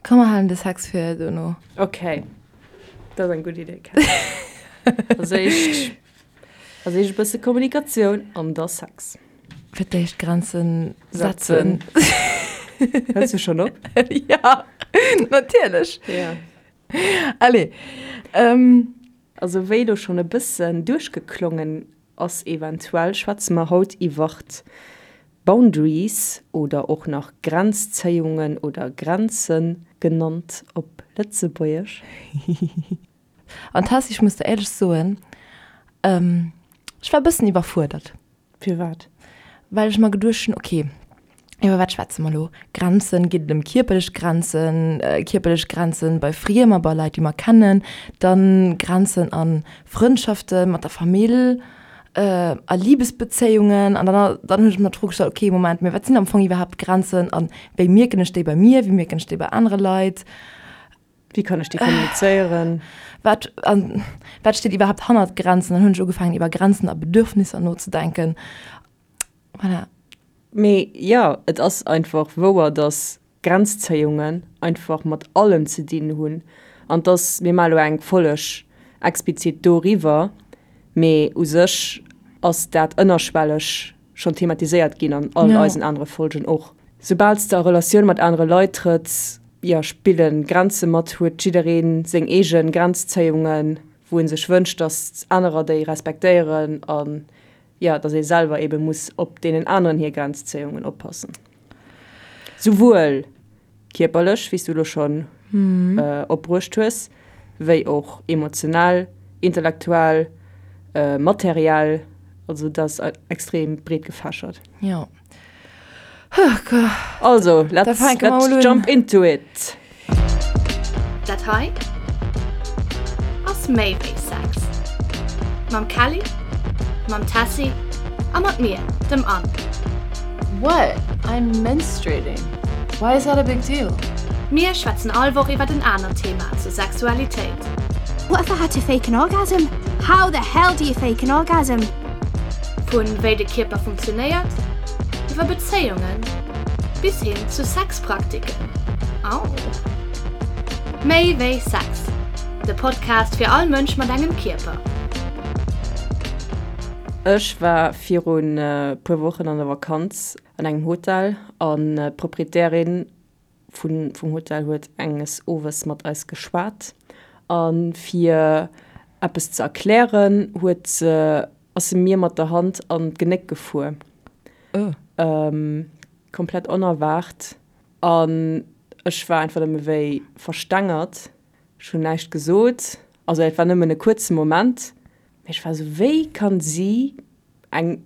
Komm mer halen de Sex fir dono. Ok, dat ass eng gutt Idee, Kat. Als éischt, als éischt e bësse Kommunikatioun an da Sex. Fir d'éischt Grenzen setzen. Hëls du schonn op? Ja, natierlech. Ja. Allez. Also wéi elo schonn e bëssen duerchgeklongen ass eventuell, schwätze mer haut iwwert Boundaries oder och nach Grenzzéiungen oder Grenze genannt op Lëtzebuergesch. An Tessy, ech muss der éierlech soen, ech war e bëssen iwwerfuerdert. Firwat? Well ech mer geduecht hunn, ok, iwwer wat schwätze mer elo? Grenzen, geet et ëm kierperlech Grenzen, kierperlech Grenzen bei Friemer, bei Leit, déi mer kennen, dann Grenzen a Frëndschaften, mat der Famill, a Libesbezéiungen. An dann dann hunn ech mer d'Fro gestallt, ok, Moment, mee wat sinn am Fong iwwerhaapt Grenzen a wéi mierken ech déi bei mir, wéi mierken ech déi bei anere Leit? Wéi kann ech déi kommunizéieren? Wat, an wat steet iwwerhaapt hannert Grenzen? Dann hunn ech ugefaangen iwwer Grenzen a Bedürfnisser nozedenken. Voilà. Mee jo, et ass einfach wouer, dass Grenzzéiungen einfach mat allem ze dinn hunn an dass, mir maache lo eng Folleg explizit doriwwer, mee u sech ass dat ënnerschwelleg schonn thematiséiert ginn an all eisen anere Folgen och. Soubal s de a Relatioun mat anere Leit trëtts, jo, spille Grenze mat, huet jidderee seng eege Grenzzéiungen, wou e sech wënscht, datt anerer déi respektéieren an, jo, datt ee selwer eebe muss op deenen aneren hir Grenzzéiungen oppassen. Souwuel kierperlech, wéi s du elo schonn opbruecht hues, wéi och emotionell, intellektuell, materiell. Also dat ass extrem breet gefächert. Jo. Also, let's, let's jump into it! Dat hei ass méi wéi Sex. Mam Kelly, mam Tessy a mat mir, dem Anne. What? I'm menstruating. Why is that a big deal? Mir schwätzen all Woch iwwert en anert Thema zur Sexualitéit. What if I had to fake an orgasm? How the hell do you fake an orgasm? Vun wéi de Kierper funktionéiert, iwwer Bezéiungen bis hin zu Sexpraktiken. Au! Méi wéi Sex, de Podcast fir all Mënsch mat engem Kierper. Ech war virun puer Wochen an der Vakanz an engem Hotel an d'Proprietärin vun vum Hotel huet enges Owes mat eis geschwat a fir eppes ze erklären huet se ass se mir mat der Hand an d'Genéck gefuer. Komplett onerwaart an ech war einfach nëmme wéi verstengert. Ech hunn näischt gesot, also et war nëmmen e kuerze Moment, mee ech war esou, wéi kann si, eng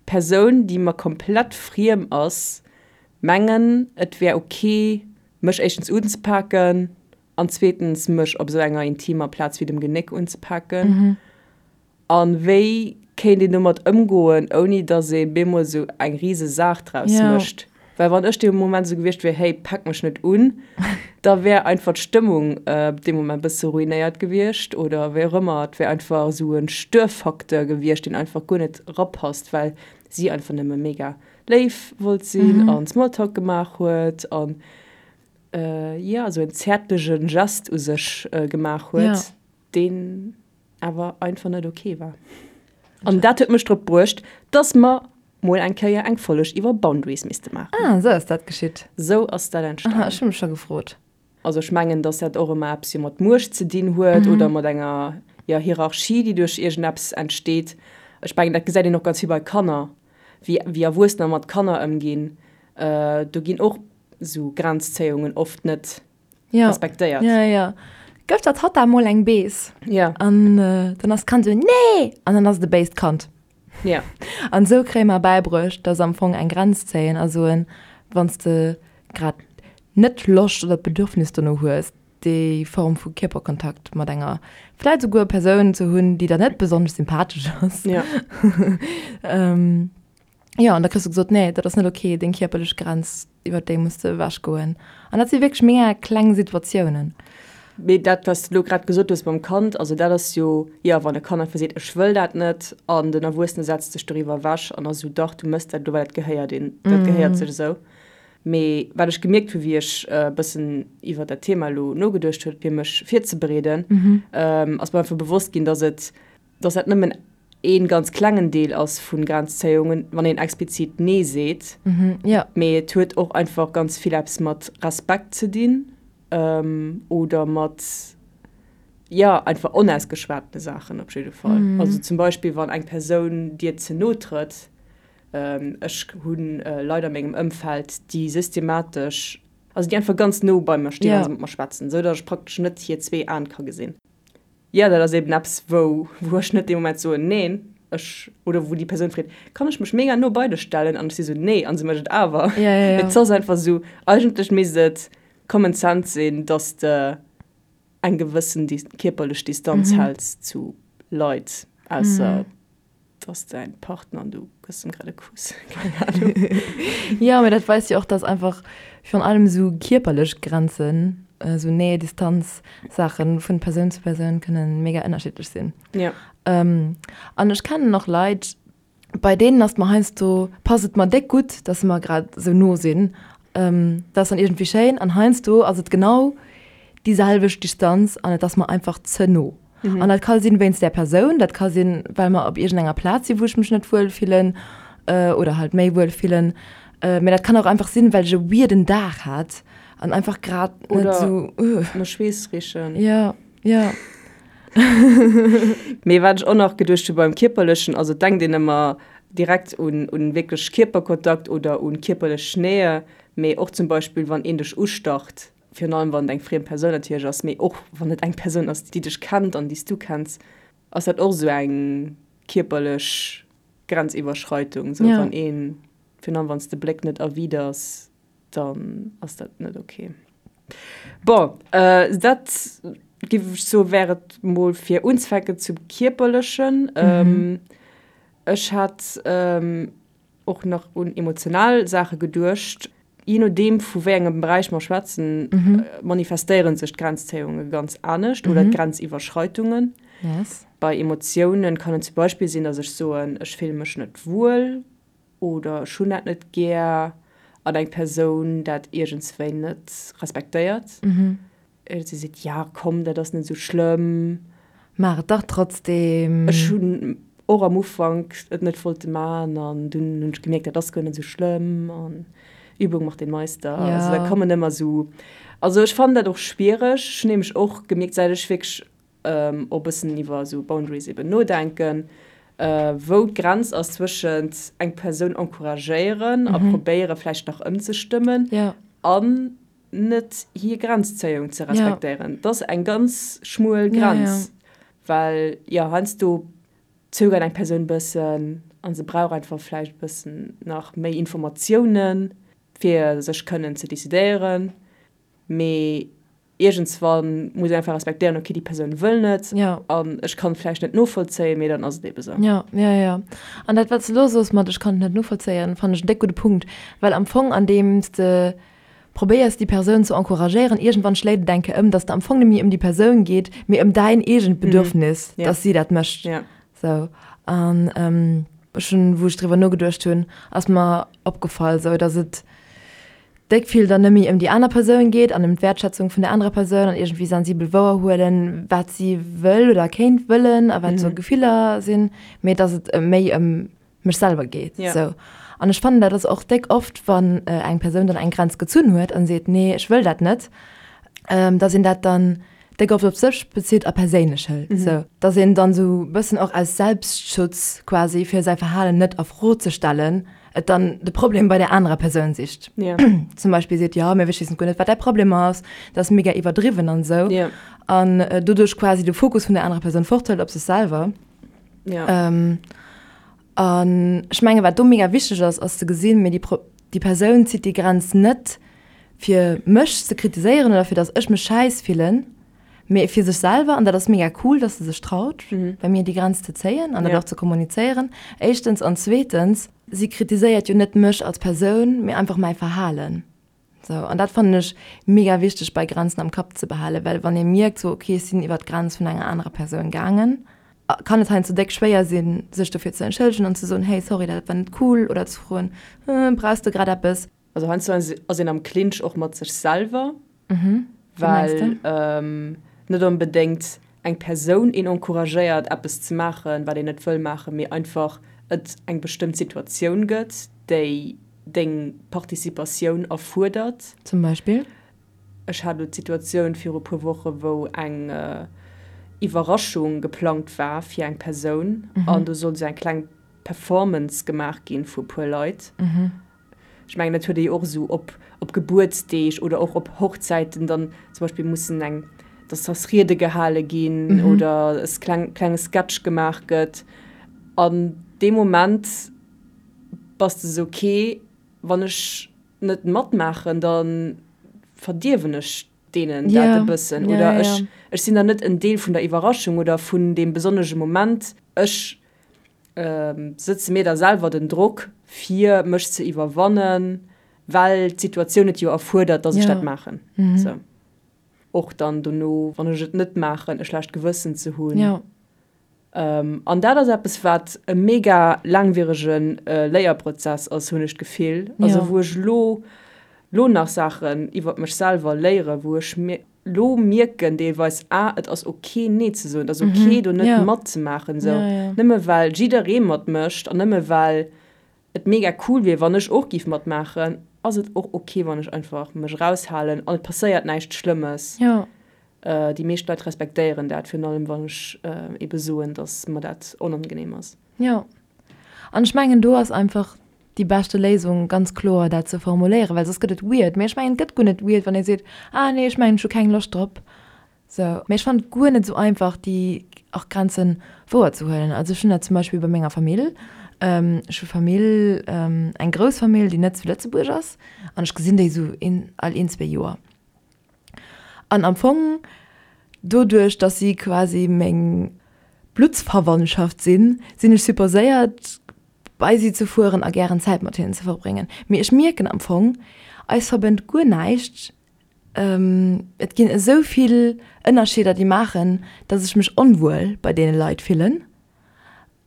Persoun déi mer komplett friem ass, mengen et wär ok mech éischtens unzepaken an zweetens mech op esou enger intimer Plaz wéi dem Genéck unzepaken? A wéi kéint een domat ëmgoen, ouni datt ee bemol esou eng rise Saach draus mécht? Well wann ech dee Moment esou gewiescht wier, hey, pak mech net un, da wär einfach d'Stëmmung dee Moment e bësse ruinéiert gewiescht oder wéi och ëmmer. Et wär einfach esou e Störfacteur gewiescht, deen einfach guer net erapasst, well si einfach nëmme mega léif wollt sinn an Smalltalk gemaach huet an, jo, esou en zäertlege Gest u sech gemaach huet, deen awer einfach net ok war. An dat huet mech drop bruecht, dass mer mol eng Kéier eng Folleg iwwer Boundaries misste maachen. Ah, esou ass dat geschitt. Esou ass dat entstanen. Aha, ech hu mech scho gefrot. Also ech mengen, dass dat och ëmmer eppes jo mat Muecht ze dinn huet oder mat enger, jo, Hierarchie, déi duerch iergendeppes entsteet. Ech mengen, dat gesäit een och ganz vill bei Kanner, wéi, wéi Erwuessener mat Kanner ëmginn. Do ginn och esou Grenzzéiungen oft net ja. respektéiert. Ja, ja. Gëff der Tatta mol eng Bees. Ja. An äh, dann ass d'Kand so, nee! An dann ass et e béist Kand. Ja. An esou kréie mer bäibruecht, dass am Fong eng Grenz zéien a soen, wann s de grad net Loscht oder d'Bedürfnis dono hues, déi Form vu Kierperkontakt mat enger vläit esouguer Persoun ze hunn, déi der net besonnesch sympathesch ass. Ja. ähm, Jo, an da kriss du gesot, nee, dat ass net ok, deng kierperlech Grenz, iwwer déi muss de ewech goen. An dat si wierklech mega kleng Situatiounen. Mee dat, wat s de elo grad gesot hues mam Kand, also dat ass jo, jo, wann e Kand einfach seet, ech wëll dat net, an den Erwuessene setzt sech doriwwer ewech an ass esou, dach, du mëss dat elo, well dat gehéiert een, dat gehéiert sech esou. Mee wat ech gemierkt hu wéi ech e bëssen iwwer dat Thema elo nogeduecht huet fir mech virzebereeden, ass mer einfach bewosst ginn, dass et, dass dat nëmmen ee ganz klengen Deel ass vu Grenzzéiungen, wann een explizit Nee seet. Mee et huet och einfach ganz vill eppes mat Respekt ze dinn oder mat, jo, einfach onausgeschwatene Saachen op jidde Fall. Also zum Beispill wann eng Persoun dir ze no trëtt, Ech hu Leit a mengem Ëmfeld, déi systematesch, also déi einfach ganz no bei mer stinn, wa se mat mer schwätzen, esou datt ech praktesch net hir zwee Aen ka gesinn. Jo, dat ass eben eppes, wou, wou ech net dee Moment soen, neen, ech, oder wou déi Persoun freet, kann ech mech mega no bei dech stellen? An ech si sou, nee, an se mécht et awer. Et ass einfach esou, eigentlech misst et Common Sense sinn, datt s de eng gewëssen kierperlech Distanz häls zu Leit, ausser Et ass däin Partner an du gëss em grad e Kuss, keng Ahnung. Jo, mee dat weist jo och, dass einfach virun allem esou kierperlech Grenzen, esou Nähe, Distanz Saachen vun Persoun zu Persoun kënnen mega ënnerschiddlech sinn. Jo. An ech kennen och Leit, bei deenen ass et mer heiansdo, passt et mer déck gutt, dass se mer grad esou no sinn, dat ass dann iergendwéi schéin, an heiansdo ass et genau déi selwecht Distanz an et ass mer einfach ze no. An dat ka sinn wéinst där Persoun, dat ka sinn, well mer op iergendenger Plaz sinn, wou ech mech net wuel fillen oder halt méi wuel fillen. Mee dat kann och einfach sinn, well ech e weirden Dag hat an einfach grad net esou. Oder no Schweess richen. Jo, jo. Mee wat ech och nach geduecht hu beim Kierperlechen, also et denkt een ëmmer direkt un un wierklech Kierperkontakt oder un kierperlech Nähe, mee och zum Beispill wann een dech ustacht, Virun allem wann et eng friem Persoun natierlech ass, mee och wann et eng Persoun ass, déi dech kennt an déi s du kenns, ass dat och esou eng kierperlech Grenziwwerschreitung. Esou wann een, virun allem wann s de Bléck net erwiders, dann ass dat net ok. Bon, dat géif ech soe wär et mol fir unzefänken zum Kierperlechen. Ech hat och nach un emotional Saache geduecht. Jee nodeem vu wéi engem Beräich mer schwätzen, manifestéiere sech d'Grenzzéiunge ganz anescht oder d'Grenziwwerschreitungen. Bei Emotiounen kann et zum Beispill sinn, datt ech soen, ech fille mech net wuel oder ech hunn dat net gär an eng Persoun dat iergendswéi net respektéiert. Si seet, Ja, komm, dat ass net esou schlëmm. Maach et dach trotzdeem. Ech hunn och am Ufank et net wollte maachen an dunn hunn ech gemierkt, dat ass guer net esou schlëmm an Übung macht den Meister. Also da kommen ëmmer esou, also ech fannen dat och schwiereg. Ech hunn nämlech och gemierkt, säit ech wierklech och e bëssen iwwer esou Boundaries eben nodenken, wou d'Grenz ass zwëschent eng Persoun encouragéieren a probéiere vläicht nach ëmzestëmmen an net hir Grenzzéiung ze respektéieren. Dat ass eng ganz schmuel Grenz, well jo heiansdo zögert eng Persoun e bëssen a se brauch einfach vläicht e bëssen nach méi Informatiounen, fir sech kënnen ze decidéieren. Mee iergendswann muss een einfach respektéieren, okay, déi Persoun wëll net an ech kann et vläicht net novollzéien, mee dann ass et eebe sou. Jo, jo, jo. An dat, wat s de elo soos mat ech kann et net novollzéien, fannen ech en déck gudde Punkt, well am Fong andeems de probéiers déi Persoun ze encouragéieren, iergendwann schléit et eng Kéier ëm, dass et am Fong net méi ëm déi Persoun geet, mee ëm däin eegent Bedürfnis, dass si dat mécht. Sou. An ech hunn, wou ech driwwer nogeduecht hunn, ass mer opgefall, sou, dass et déck vill dann net méi ëm déi aner Persoun geet an ëm d'Wäertschätzung vun der anerer Persoun an iergendwéi sensibel wouerhuelen, wat si wëll oder kéint wëllen a wat sou Gefiller sinn, mee dass et méi ëm mech selwer geet. Ja. Sou. An ech fannen, dat ass och déck oft, wann eng Persoun dann eng Grenz gezunn huet an seet, nee, ech wëll dat net, dass een dat dann déck oft op sech bezitt a perséinlech hëlt. Sou. Dass een dann sou e bëssen och aus Selbstschutz quasi, fir säi Verhalen net a Fro ze stellen, et dann de Problem bei der anerer Persoun sicht. Ja. Zum Beispill seet, jo, mee ech weess guer net, wat däi Problem ass, dat ass mega iwwerdriwwen an esou. Ja. An doduerch quasi de Fokus vun der anerer Persoun forthëlt op sech selwer. Ja. Ähm, an ech menge wat do mega wichteg ass, ass ze gesinn, mee déi, Pro déi Persoun zitt déi Grenz net fir mech ze kritiséieren oder fir datt ech mech schäiss fillen, mee fir sech selwer. An dat ass mega cool, datt se sech traut, mhm. bei mir déi Grenz ze zéien an dat ja. och ze kommunizéieren. Éischtens an zweetens, si kritiséiert jo net mech als Persoun, mee einfach mäi Verhalen. Sou, an dat fannen ech mega wichteg bei Grenzen am Kapp ze behalen, well wann ee mierkt sou, okay ech sinn iwwer d'Grenz vun enger anerer Persoun gaangen, kann et heiansdo déck schwéier sinn, sech dofir ze entschëllegen an ze soen, hey sorry dat war net cool oder ze froen, brauchs de grad eppes? Also heiansdo ass een am Clinch och mat sech selwer, well net onbedéngt eng Persoun een encouragéiert eppes ze maachen, wat een net wëll maachen, mee einfach et eng bestëmmt Situatioun gëtt, déi deng Participatioun erfuerdert. Zum Beispill? Ech hat elo d'Situatioun viru puer Woche wou eng Iwwerraschung geplangt war fir eng Persoun an do sollt esou eng kleng Performance gemaach ginn vu puer Leit. Ech mengen dat huet ee jo och esou op op Gebuertsdeeg oder och op Hochzäiten dann zum Beispill mussen eng, dass dass Riede gehale ginn oder e kleng klenge Sketch gemaach gëtt. An dee Moment bass de esou, okay, wann ech net matmaachen, da verdierwen ech deenen dat e bëssen oder ech ech sinn dann net en Deel vun der Iwwerraschung oder vun deem besonnege Moment. Ech sëtze mir da selwer den Drock fir mech ze iwwerwannen, well d'Situatioun et jo erfuerdert, dass ech dat maachen. Sou. Och dann dono, wann ech et net maachen, e schlecht Gewëssen ze hunn. An dat ass eppes, wat e mega laangwierege Léierprozess ass, hunn ech d'Gefill. Also wou ech elo, elo nach Saachen iwwer mech selwer léieren, wou ech elo mierken deelweis, ah, et ass ok nee ze soen, et ass ok do net matzemaachen esou. Nëmme well jidderee matmécht an nëmme well et mega cool wier, wann ech och giff matmaachen, ass et och ok, wann ech einfach mech eraushalen an et passéiert näischt Schlëmmes. Déi meescht Leit respektéieren dat, virun allem wann ech ebe soen, dass mer dat onangenehm ass. Jo, an ech mengen do ass einfach déi beschte Léisung ganz kloer dat ze formuléieren, well soss gëtt et weird. Mee ech mengen et gëtt guer net weird, wann ee seet, ah nee, ech mengen ech hu keng Loscht drop. Sou, mee ech fannen et guer net esou einfach déi och Grenzen wouer ze huelen. Also ech hunn dat zum Beispill bei menger Famill. Ech hu Famill, eng grouss Famill, déi net zu Lëtzebuerg ass an ech gesinn déi esou een all een, zwee Joer. An am Fong, doduerch dass si quasi meng Bluttsverwandtschaft sinn, sinn ech supposéiert bei si ze fueren a gären Zäit mat hinnen ze verbréngen. Mee ech mierken am Fong, eis verbënnt guer näischt. Et ginn esou vill Ënnerscheeder, déi maachen, dass ech mech onwuel bei deene Leit fillen.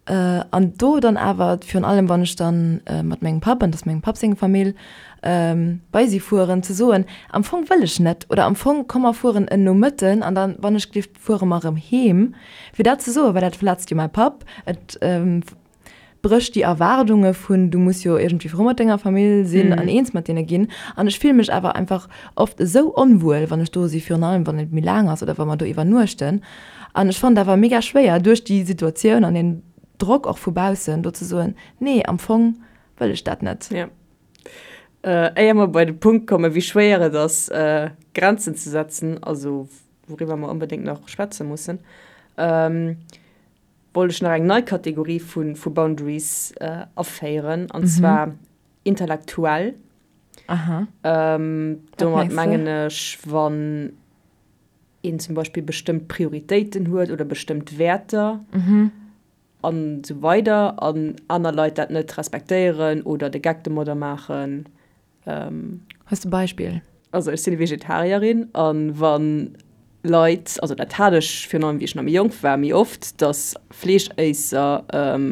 An do dann awer, virun allem wann ech dann mat mengem Papp, an dat ass mengem Papp seng Famill, bei si fueren, ze soen, am Fong wëll ech net oder am Fong komm mer fueren en Nomëtten an dann, wann ech gelift, fuere mer erëm heem. Fir dat ze soen, well dat verletzt jo mäi Papp, et brécht déi Erwaardunge vun, du muss jo iergendwéi frou mat denger Famill sinn an eens mat deene ginn. An ech fille mech awer einfach oft esou onwuel, wann ech do si, virun allem wann et méi laang ass oder wa mer do iwwernuechten. An ech fannen et awer mega schwéier, duerch déi Situatioun an den Drock och vu baussen, do ze soen, nee, am Fong wëll ech dat net. Jo. Éier mer bei de Punkt kommen, wéi schwéier et ass, Grenzen ze setzen, also wouriwwer mer onbedéngt nach schwätze mussen, wollt ech nach eng nei Kategorie vu Boundaries aféieren, an zwar intellektuell. Aha. Domat mengen ech, wann een zum Beispill bestëmmt Prioritéiten huet oder bestëmmt Wäerter an esou weider an aner Leit dat net respektéieren oder de Geck domadder maachen. Hues de Beispill? Also ech sinn Vegetarierin an wa Leit, also dat hat ech virun allem wéi ech nach méi jonk war méi oft, datt Fleeschéisser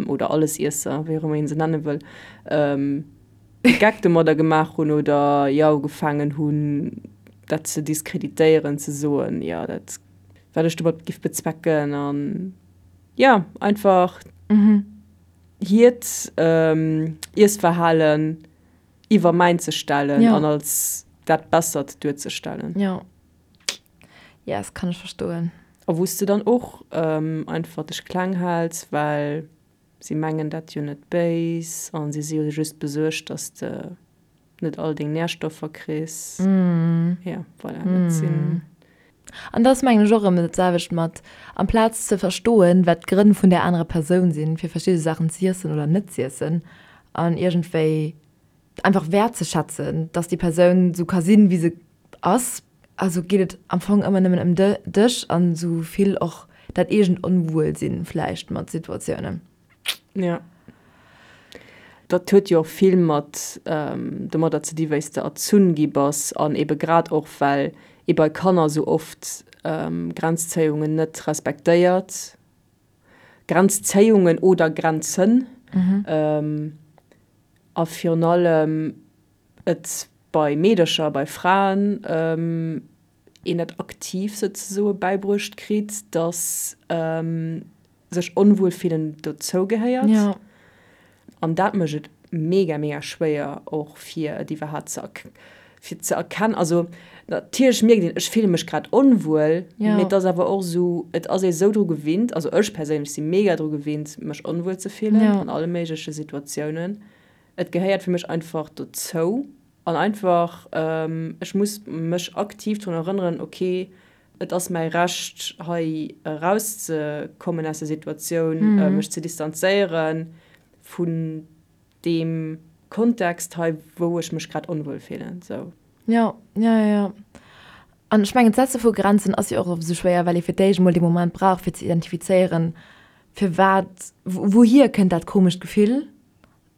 oder Allesiesser, wéi och ëmmer een se nenne wëll, de Geck domadder gemaach hunn oder jo ugefaangen hunn dat ze diskreditéieren, ze soen, jo dat wat ech domat giff bezwecken an jo einfach hiert Iessverhalen iwwer mäin ze stellen an als dat Bessert duerzestellen. Jo. Yes, kann ech verstoen. A wou s de dann och einfach dech kleng häls, well si mengen dat jo net béis a si si jo just besuergt, dass de net all deng Närstoffer kriss. Jo, voilà, dat sinn. An dat ass mengen ech och erëm dat selwecht mat, amplaz ze verstoen, wat d'Grënn vun där anerer Persoun sinn, fir verschidde Saachen z'iessen oder net z'iessen an iergendwéi einfach wäertzeschätzen, dass déi Persoun esou ka sinn, wéi se ass. Also geet et am Fong ëmmer nëmmen ëm dech an esou vill och dat eegent Onwuelsinn vläicht mat Situatiounen. Jo. Dat huet jo och vill mat domadder ze di wéi s de erzunn gi bass an ebe grad och well ee bei Kanner esou oft Grenzzéiungen net respektéiert, Grenzzéiungen oder Grenzen a virun allem. Et bei Meedercher, bei Fraen een dat aktiv souzesoe bäibruecht kritt, dass sech onwuel fillen dozou gehéiert. An dat mécht et mega, mega schwéier och fir et iwwerhaapt ze fir ze erkennen. Also natierlech mierkt een, ech fille mech grad onwuel, mee et ass awer och esou, et ass ee sou dru gewinnt, also ech perséinlech si mega dru gewinnt, mech onwuel ze fillen an alle méigleche Situatiounen. Et gehéiert fir mech einfach dozou an einfach, ech muss mech aktiv drun erënneren, ok, et ass mäi Recht hei erauszekommen aus der Situatioun, mech ze distanzéiere vun deem Kontext hei, wou ech mech grad onwuel fillen. Sou. Jo, jo, jo, jo. An ech mengen, d'Setze vu Grenzen ass jo och esou schwéier, well ee fir d'éischt emol dee Moment brauch, fir ze identifizéieren, firwat, wouhier kënnt dat komescht Gefill,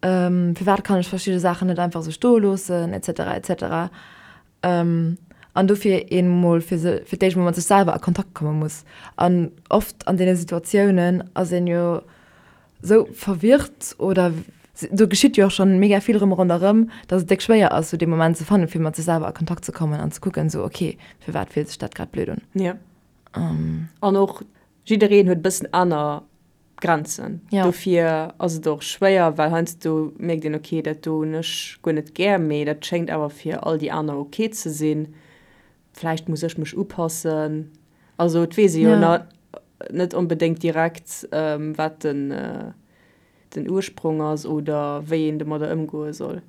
firwat kann ech verschidde Saachen net einfach esou stoe loossen, et cetera, et cetera. An dofir een emol fir se, fir d'éischt emol mat sech selwer a Kontakt komme muss. An oft an deene Situatiounen ass een jo esou verwirrt oder do geschitt jo och schonn mega vill rëm ronderëm, datt et déck schwéier ass, esou dee Moment ze fannen, fir mat sech selwer a Kontakt ze kommen an ze kucken, esou ok, firwat fillt sech dat grad blöd un? Jo. An och jiddereen huet e bëssen aner Grenzen. Ja. Dofir ass et och schwéier, well heiansdo mierkt een, ok, dat do hunn ech guer net gär, mee dat schéngt awer fir all déi aner ok ze sinn. Vläicht muss ech mech upassen. Also et weess ee jo Ja. net onbedéngt direkt, wat den, den Ursprong ass oder wéi een domadder ëmgoe soll.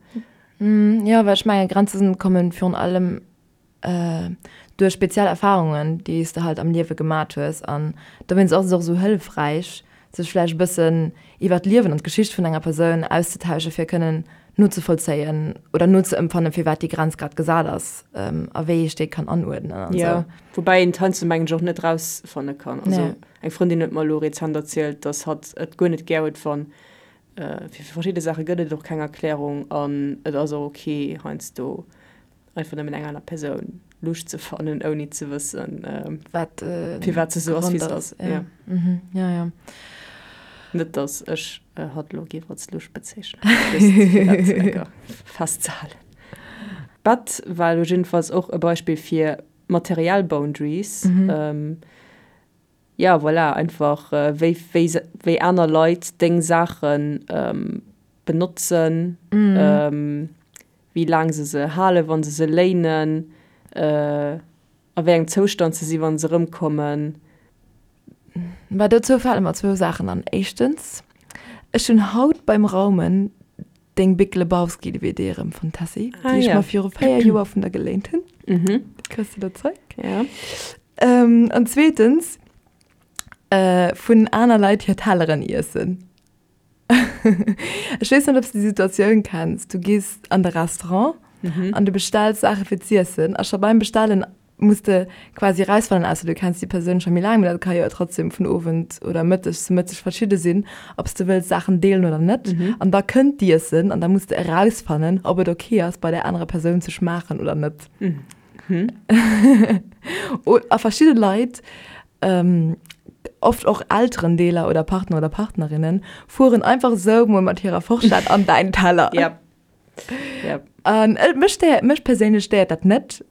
Jo, well ech menge Grenzen kommen virun allem duerch speziell Erfahrungen, déi s de halt am Liewe gemat hues. An dowéinst ass et och esou hëllefräich, sech vläicht e bëssen iwwer d'Liewen an d'Geschicht vun enger Persoun auszetausche fir kënnen nozevollzéien oder nozeëmpfannen, firwat déi Grenz grad gesat ass a wéi ech déi kann anuerdnen an Jo, esou. woubäi een et heiansdo mengen ech och net rausfanne kann. Also Nee. eng Frëndin huet mer elo rezent erzielt, dass hatt et guer net gär huet, wann fir verschidde Saache gëtt et och keng Erklärung an et ass och ok heiansdo einfach nëmmen eng aner Persoun lusch ze fannen, ouni ze wëssen, wat firwat se sou ass, wéi se ass. Ja. Mhm. Ja, ja. Net, dass ech hatt elo géif als lusch bezeechnen, just fir dat enker festzehalen. D'Bett war elo jiddefalls och e Beispill fir materiell Boundaries. Ja, voilà, einfach wéi, wéi, wéi aner Leit deng Saache benotzen. wéi laang se se halen, wa se se léinen, a wéi engem Zoustand se sinn, wa se erëmkommen. Bah, dozou fale mer zwou Saachen an. Éischtens, ech hunn haut beim Raumen deng Big Lebowski DVD erëmfonnt, Tessy, déi ech mer viru 4 Joer vun der geléint hunn. Déi kriss de lo zeréck. An zweetens, vun aner Leit hir Telleren iessen. Ech weess net, ob s de déi Situatioun kenns, Du gees an de Restaurant an du bestells Saache fir z'iessen a scho beim Bestellen muss de quasi erausfannen, ausser du kenns déi Persoun scho méi laang, mee dat ka jo trotzdem vun Owend oder Mëtteg zu Mëtteg verschidde sinn, ob s de wëlls Saachen deelen oder net. An da kënnt d'Iessen an da muss de erausfannen, ob et ok ass, bei där anerer Persoun ze schmaachen oder net. A verschidde Leit Oft och Elterendeeler oder Partner oder Partnerinnen fueren einfach esou mol mat hirer Forschett an däin Teller. Yep. Yep. An mech stéiert, mech perséinlech stéiert dat net.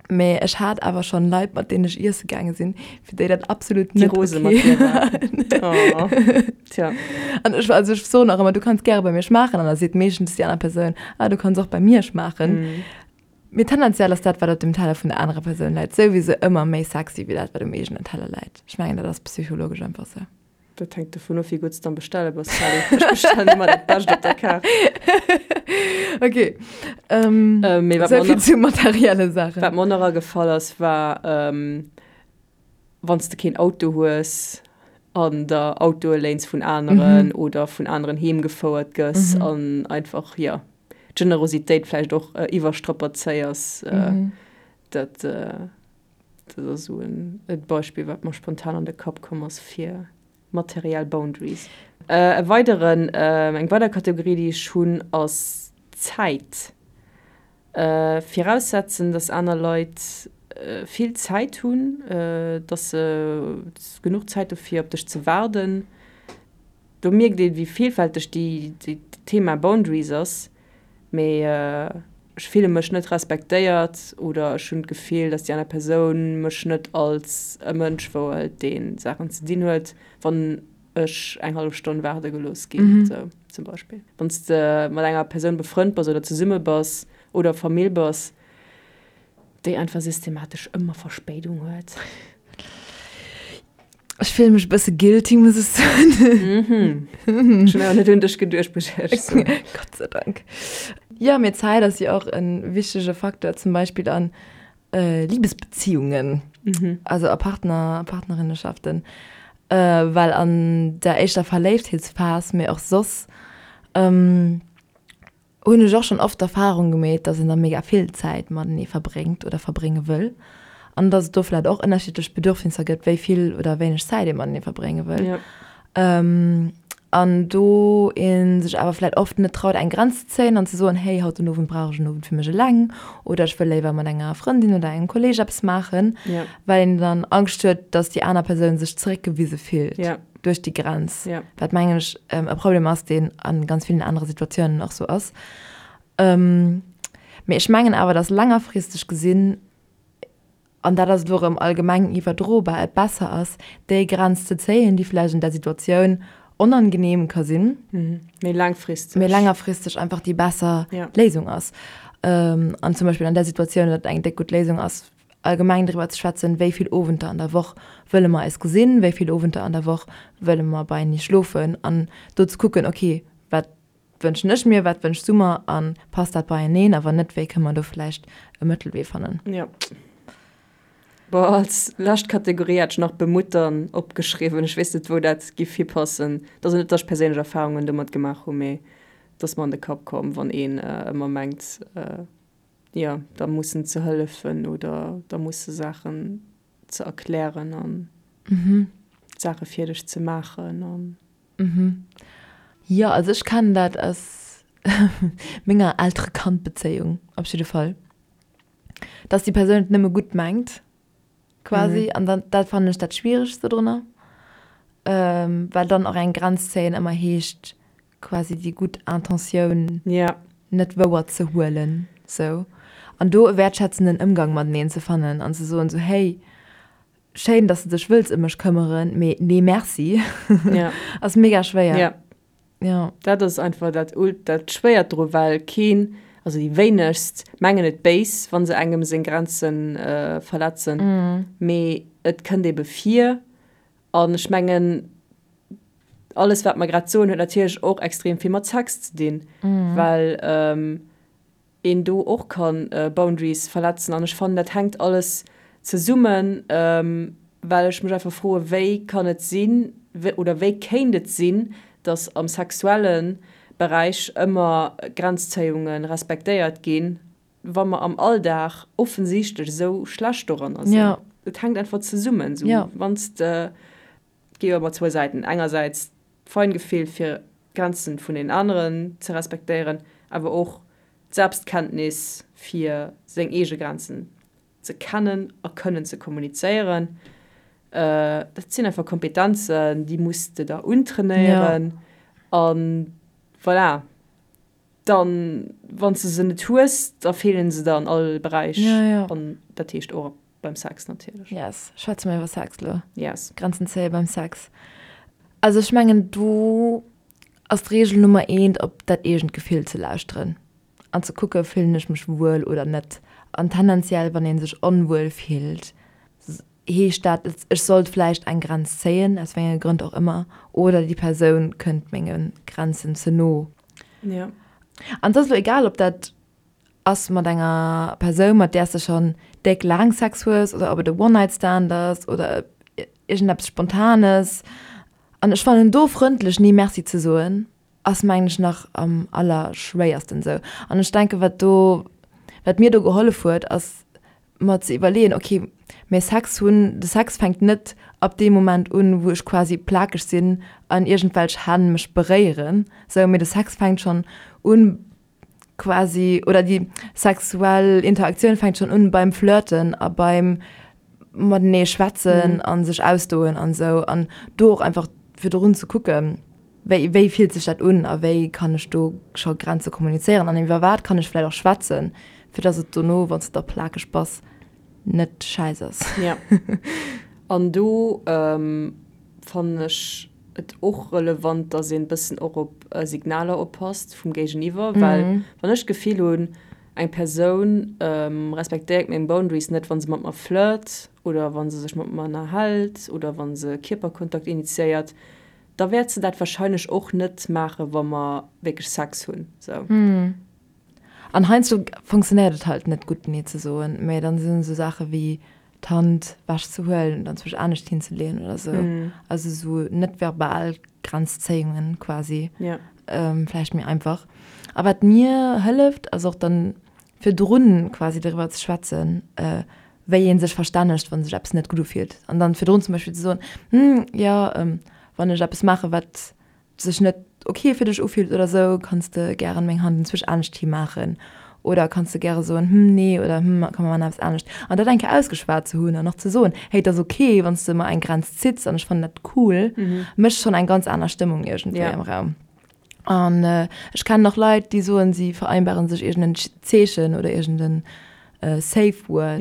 Mee ech hat awer schonn Leit, mat deenen ech iesse gaange sinn, fir déi dat absolut net okay war. Déi rose mat dir waren. Oh, tja. An ech, also ech soen och ëmmer, du kanns gäre bei mir schmaachen. An da seet meeschtens déi aner Persoun, ah, du kanns och bei mir schmaachen. Mee tendenziell ass dat, wat op dem Teller vun der anerer Persoun läit, souwisou ëmmer méi sexy wéi dat, wat um eegenen Teller läit. Ech mengen, dat ass psychologesch einfach sou. Dat hänkt dovun of, wéi gutt s de am Bestelle bass, Sally. Ech bestellen ëmmer dat Bescht op der Kaart. Ok. Mee wat Sou mer vill nach, zu materielle Saachen. wat mer och nach agefall ass, war, wann s de keen Auto hues an der Autoe léins vun aneren oder vun aneren heem gefouert gëss an einfach, jo, d'Generositéit vläicht och iwwerstrapazéiers. Dat, dat ass esou e Beispill, wat mer spontan an de Kapp komm ass fir materiell Boundaries. E weideren, eng weider Kategorie, déi ech hunn, ass d'Zäit. Viraussetzen, dass aner Leit vill Zäit hunn, dass se genuch Zäit hu fir op dech ze waarden. Do mierkt een, wéi villfälteg déi Thema Boundaries ass. Mee ech fille mech net respektéiert oder ech hunn d'Gefill, dass déi aner Persoun mech net als e Mënsch wouhëlt, dee Saachen ze dinn huet, wann ech eng hallef Stonn waarde gelooss ginn, sou zum Beispill. Wann s de mat enger Persoun befrënnt bass oder zesumme bass oder Famill bass, déi einfach systematesch ëmmer Verspéidung huet. Ech fillen mech e bësse guilty, muss ech soen. Mhm. Ech hunn awer net un dech geduecht, muss ech éierlech soen. Gott sei Dank. Jo, mee Zäit ass jo och e wichtege Facteur, zum Beispill an Libesbeziungen, also a Partner, Partnerinneschaften, well an der éischter Verléiftheetsphas, mee och soss, hunn ech och schonn oft d'Erfahrung gemeet, dass een da mega vill Zäit matenee verbréngt oder verbrénge wëll an dass et do vläicht och ënnerschiddlech Bedürfnisser gëtt, wéi vill oder wéineg Zäit ee matenee verbrénge wëll. An do ee sech awer vläicht oft net traut, eng Grenz ze zéien an ze soen, hey, haut den Owend brauch ech en Owend fir mech eleng oder ech wëll léiwer mat enger Frëndin oder engem Kolleeg eppes maachen, well een dann Angscht huet, dass déi aner Persoun sech zeréckgewise fillt. Duerch déi Grenz, wat mengen ech e Problem ass, deen a ganz villen anere Situatiounen och sou ass. Mee ech mengen awer, datt längerfristeg gesinn, an dat ass elo erëm allgemeng iwwerdrobar, et besser ass, déi Grenz ze zéien, déi vläicht an där Situatioun onangeneem ka sinn, mee laangfristeg, mee längerfristeg einfach déi besser Léisung ass. An zum Beispill an där Situatioun, datt eng déck gutt Léisung ass, allgemeng driwwer ze schwätzen, wéi vill Owenter an der Woch wëlle mer eis gesinn, wéi vill Owenter an der Woch wëlle mer beienee schlofen an do ze kucken, ok, wat wënschen ech mir, wat wënschs du mer a passt dat beieneen a wann net, wéi kënne mer do vläicht e Mëttelwee fannen. Jo. Bon, als lescht Kategorie hat ech nach bemuttern opgeschriwwen. Ech weess net, wou dat giff hipassen. Et ass net, datt ech perséinlech Erfarungen domat gemaach hunn, mee et ass mer an de Kapp komm, wann een ëmmer mengt, jo, da mussen ze hëllefen oder da musse Saachen ze erklären an Saache fir dech ze maachen an. Jo, also ech kennen dat aus menger Eltere-Kand-Bezéiung op jidde Fall, dass déi Persoun et nëmme gutt mengt quasi an dann, dat fannen ech dat Schwieregste drunner, well dann och eng Grenz zéien ëmmer heescht, quasi déi gutt Intentioun net wouer ze huelen sou an do e wäertschätzenden Ëmgang mateneen ze fannen an ze soen sou, hey, schéin, dass de dech wëlls ëm mech këmmeren, mee nee merci, ass mega schwéier. Jo. Dat ass einfach dat dat Schwéiert dru well keen, also déi wéinegst mengen et béis, wa se engem seng Grenze verletzen, mee et kënnt ebe vir an ech mengen, alles wat mer grad soen huet natierlech och extrem vill mat Sex ze dinn, well een do och kann Boundaries verletzen an ech fannen dat hänkt alles zesummen, well ech mech einfach froe wéi kann et sinn oder wéi kéint et sinn, datt am sexuelle Beräich ëmmer Grenzzéiunge respektéiert ginn, wa mer am Alldag offensichtlech esou schlecht doranner sinn. Et hänkt einfach zesummen, sou wann s de Et gi jo ëmmer zwou Säiten, engersäits d'Feingefill fir d'Grenzen vun den aneren ze respektéieren, awer och d'Selbstkenntnis fir seng eege Grenzen ze kennen a kënnen ze kommunizéieren. Dat sinn einfach Kompetenzen, déi muss de der untrainéieren a voilà. Dann, wann s de se net hues, da feelen se der an all Beräich an dat heescht och beim Sex natierlech. Yes, schwätze mer iwwer Sex lo. Yes. Grenzen zéie beim Sex. Also ech mengen do ass d'Reegel Nummer eent op dat eegent Gefill ze lauschteren an ze kucke fillen ech mech wuel oder net. An tendenziell wann ee sech onwuel fillt, heescht dat ech sollt vläicht eng Grenz zéien, aus wéi enge Grënn och ëmmer, oder déi Persoun kënnt menge Grenzen ze no. Ja. An et ass elo egal ob dat ass mat enger Persoun, mat där s de schonn déck laang Sex hues oder ob et e One-Night-Stand ass oder iergendeppes Spontanes. An ech fannen do frëndlech Nee Merci ze soen, ass mengen ech nach am allerschwéiersten esou. An ech denken, wat do, wat mir do gehollef huet, ass mer ze iwwerleeën, ok, mä Sex hunn, de Sex fänkt net ab deem Moment un, wou ech quasi plakeg sinn an iergendwelch Hänn mech beréieren, sou, mee de Sex fänkt schonn un quasi, oder déi sexuell Interaktioun fänkt schonn un beim Flirten a beim matenee schwätzen a sech ausdoen an esou an do och einfach virdrun ze kucken. Wéi, wéi fillt sech dat un a wéi kann ech do scho Grenze kommunizéieren an iwwer wat kann ech vläicht och schwätzen, fir dass et dono, wann s de da plakeg bass, net schäiss ass. Ja. An do fannen ech et och relevant, dass een e bëssen och op Signaler oppasst vum Géigeniwwer, well wann ech d'Gefill hunn, eng Persoun respektéiert meng Boundaries net, wa se mat mer flirt oder wa se sech mat mer ënnerhält oder wa se Kierperkontakt initiéiert, da wäert se dat wahrscheinlech och net maachen, wa mer wierklech Sex hunn. Sou. An heiansdo funktionéiert et halt net gutt nee ze soen, mä dann sinn esou Saache wéi d'Hand wech ze huelen oder enzwousch anescht hinzeleeën oder sou. Also esou net verbal Grenzzéiungen quasi. Vläicht méi einfach. A wat mir hëlleft, ass och dann virdrun quasi doriwwer ze schwätzen, wéi ee sech verstännegt, wa sech eppes net gutt ufillt. An dann virdrun zum Beispill ze soen, Hm, jo, wann ech eppes maachen, wat sech net ok fir dech ufillt oder sou, kanns de gären meng Hand enzwousch anescht hi maachen. Oder kanns de gäre soen, Hm, nee oder Hm, komm mer maachen eppes anescht. An dat eng Kéier ausgeschwat ze hunn an och ze soen, Hey, et ass ok, wann s de mer eng Grenz zitts an ech fannen dat cool, mécht schonn eng ganz aner Stëmmung iergendwéi am Raum. An ech kennen och Leit, déi soen, si vereinbaren sech iergend en Zeechen oder iergend en Safe Word,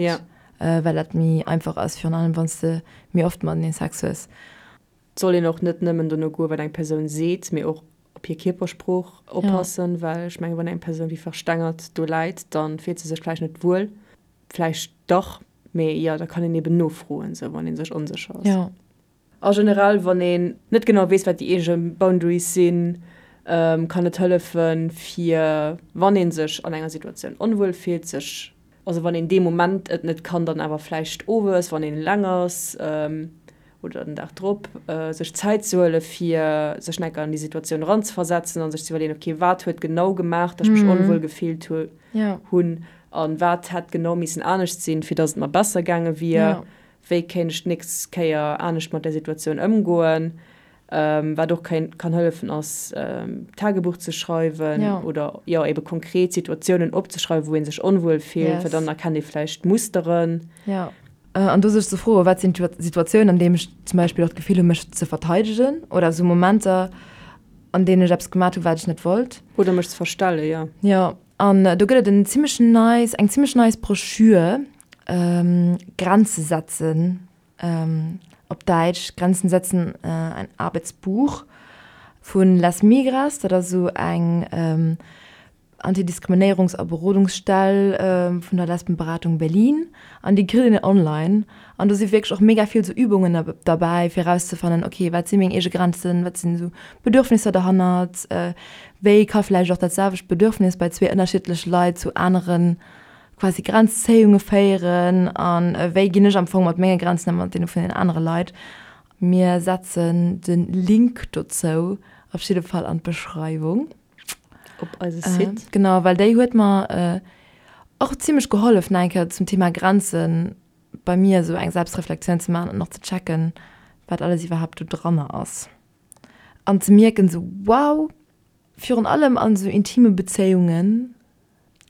well dat méi einfach ass, virun allem wann s de méi oft matenee Sex hues. Et soll een och net nëmmen dono goen, wat eng Persoun seet, mee och op hir Kierpersprooch oppassen, well ech mengen, wann eng Persoun wéi verstengert do läit, da fillt se sech vläicht net wuel. Vläicht dach, mee jo, da kann een eben nofroen, sou wann ee sech onsécher ass. A generell, wann een net genau weess, wat déi eege Boundaries sinn, kann et hëllefen, fir, wann ee sech an enger Situatioun onwuel fillt, sech, also wann een dee Moment et net kann, dann awer vläicht owes, wann een eleng ass oder den Dag drop, sech Zäit ze huele fir sech nach eng Kéier an déi Situatioun eranzeversetzen a sech ze iwwerleeën, okay, wat huet genau gemaach, datt ech mech onwuel gefillt hunn a wat hätt genau missen anescht sinn, fir datt et mer besser gaange wier. Wéi kéint ech d'nächst Kéier anescht mat där Situatioun ëmgoen? Wat och kann hëllefen ass, Tagebuch ze schreiwen oder jo ebe konkret Situatiounen opzeschreiwen, wou ee sech onwuel fillt, well dann erkennt ee vläicht Musteren. Jo, an do sech ze froen, wat sinn d'Situatiounen, an deem ech zum Beispill och d'Gefill hunn, mech ze verteidegen oder esou Momenter, an deenen ech eppes gemat hunn, wat ech net wollt. Oder mech ze verstellen, jo. Jo, an do gëtt et en zimmlech nice, eng zimmlech nice Broschür, Grenze setzen, op Däitsch, Grenzen setzen, ein Arbeitsbuch vun Les Migras, dat ass esou eng Antidiskriminéierungs a Berodungsstell vun der Lesbenberatung Berlin an déi kritt een online an do si wierklech och mega vill sou Übungen derbäi fir erauszefannen, ok wat si meng eege Grenzen, wat sinn esou Bedürfnisser derhannert, wéi ka vläicht och dat selwecht Bedürfnis bei zwee ënnerschiddleche Leit zu aneren quasi Grenzzéiunge féieren an wéi ginn ech am Fong mat menge Grenzen ëm mat deene vun den anere Leit. Mir setzen de Link dozou op jidde Fall an d'Beschreiwung. Op eise Site. Genau, well déi huet mer och zimmlech gehollef nach eng Kéier zum Thema Grenzen bei mir esou eng Selbstreflexioun ze maachen an och ze checken, wat alles iwwerhaapt do dranner ass an ze mierken esou, wow, virun allem an esou intime Bezéiungen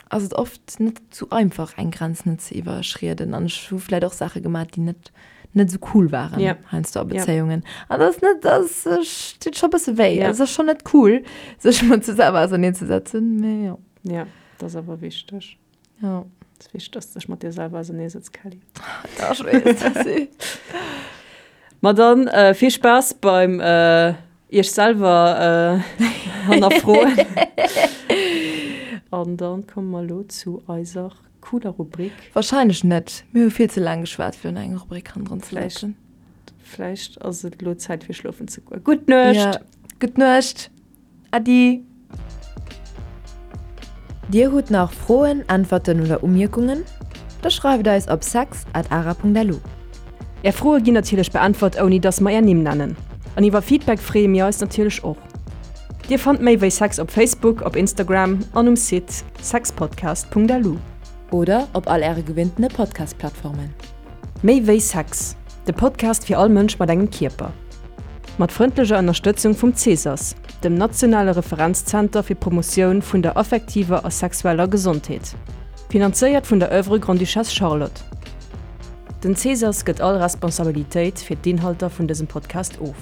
ass et oft net sou einfach eng Grenz net ze iwwerschrieden an ech hu vläit och Saache gemaach déi net net sou cool waren yeah. heiansdo a Bezéiungen an dat ass net dat deet scho bësse wéi yeah. ass schon net cool sech mat sech selwer auserneen ze setzen mee jo ja dat ass awer wichteg ja et ass wichteg dass du dech mat dir selwer ausernee setz Kelly ja, ech weess dat si Ma dann äh, vill Spaass beim äh, Iech selwer hannerfroen. An dann komme mer elo zu eiser cooler Rubrik. Wahrscheinlech net. Mir hu vill ze laang geschwat fir elo eng Rubrik hannendrun ze setzen. Vläicht ass et elo Zäit fir schlofen ze goen. Gutt Nuecht! Ja, gutt Nuecht! Äddi! Dir hutt nach Froen, Äntwerten oder Umierkungen? Da schreift eis op sex at ara.lu. Är Froe ginn natierlech beäntwert ouni dass mer är Nimm nennen. An iwwer Feedback freeë mir eis natierlech och. Dir fannt méi wéi Sex op Facebook, op Instagram an um Site sexpodcast.lu. Oder op all äre gewinntene Podcast-Plattformen. Méi wéi Sex, de Podcast fir all Mënsch mat engem Kierper. Mat frëndlecher Ënnerstëtzung vum CSAS, dem nationale Referenzzenter fir d'Promotioun vun der affektiver a sexueller Gesondheet. Finanzéiert vun der Oeuvre Grande-Duchesse Charlotte. Den CSAS gëtt all Responsabilitéit fir d'Inhalter vun dësem Podcast of.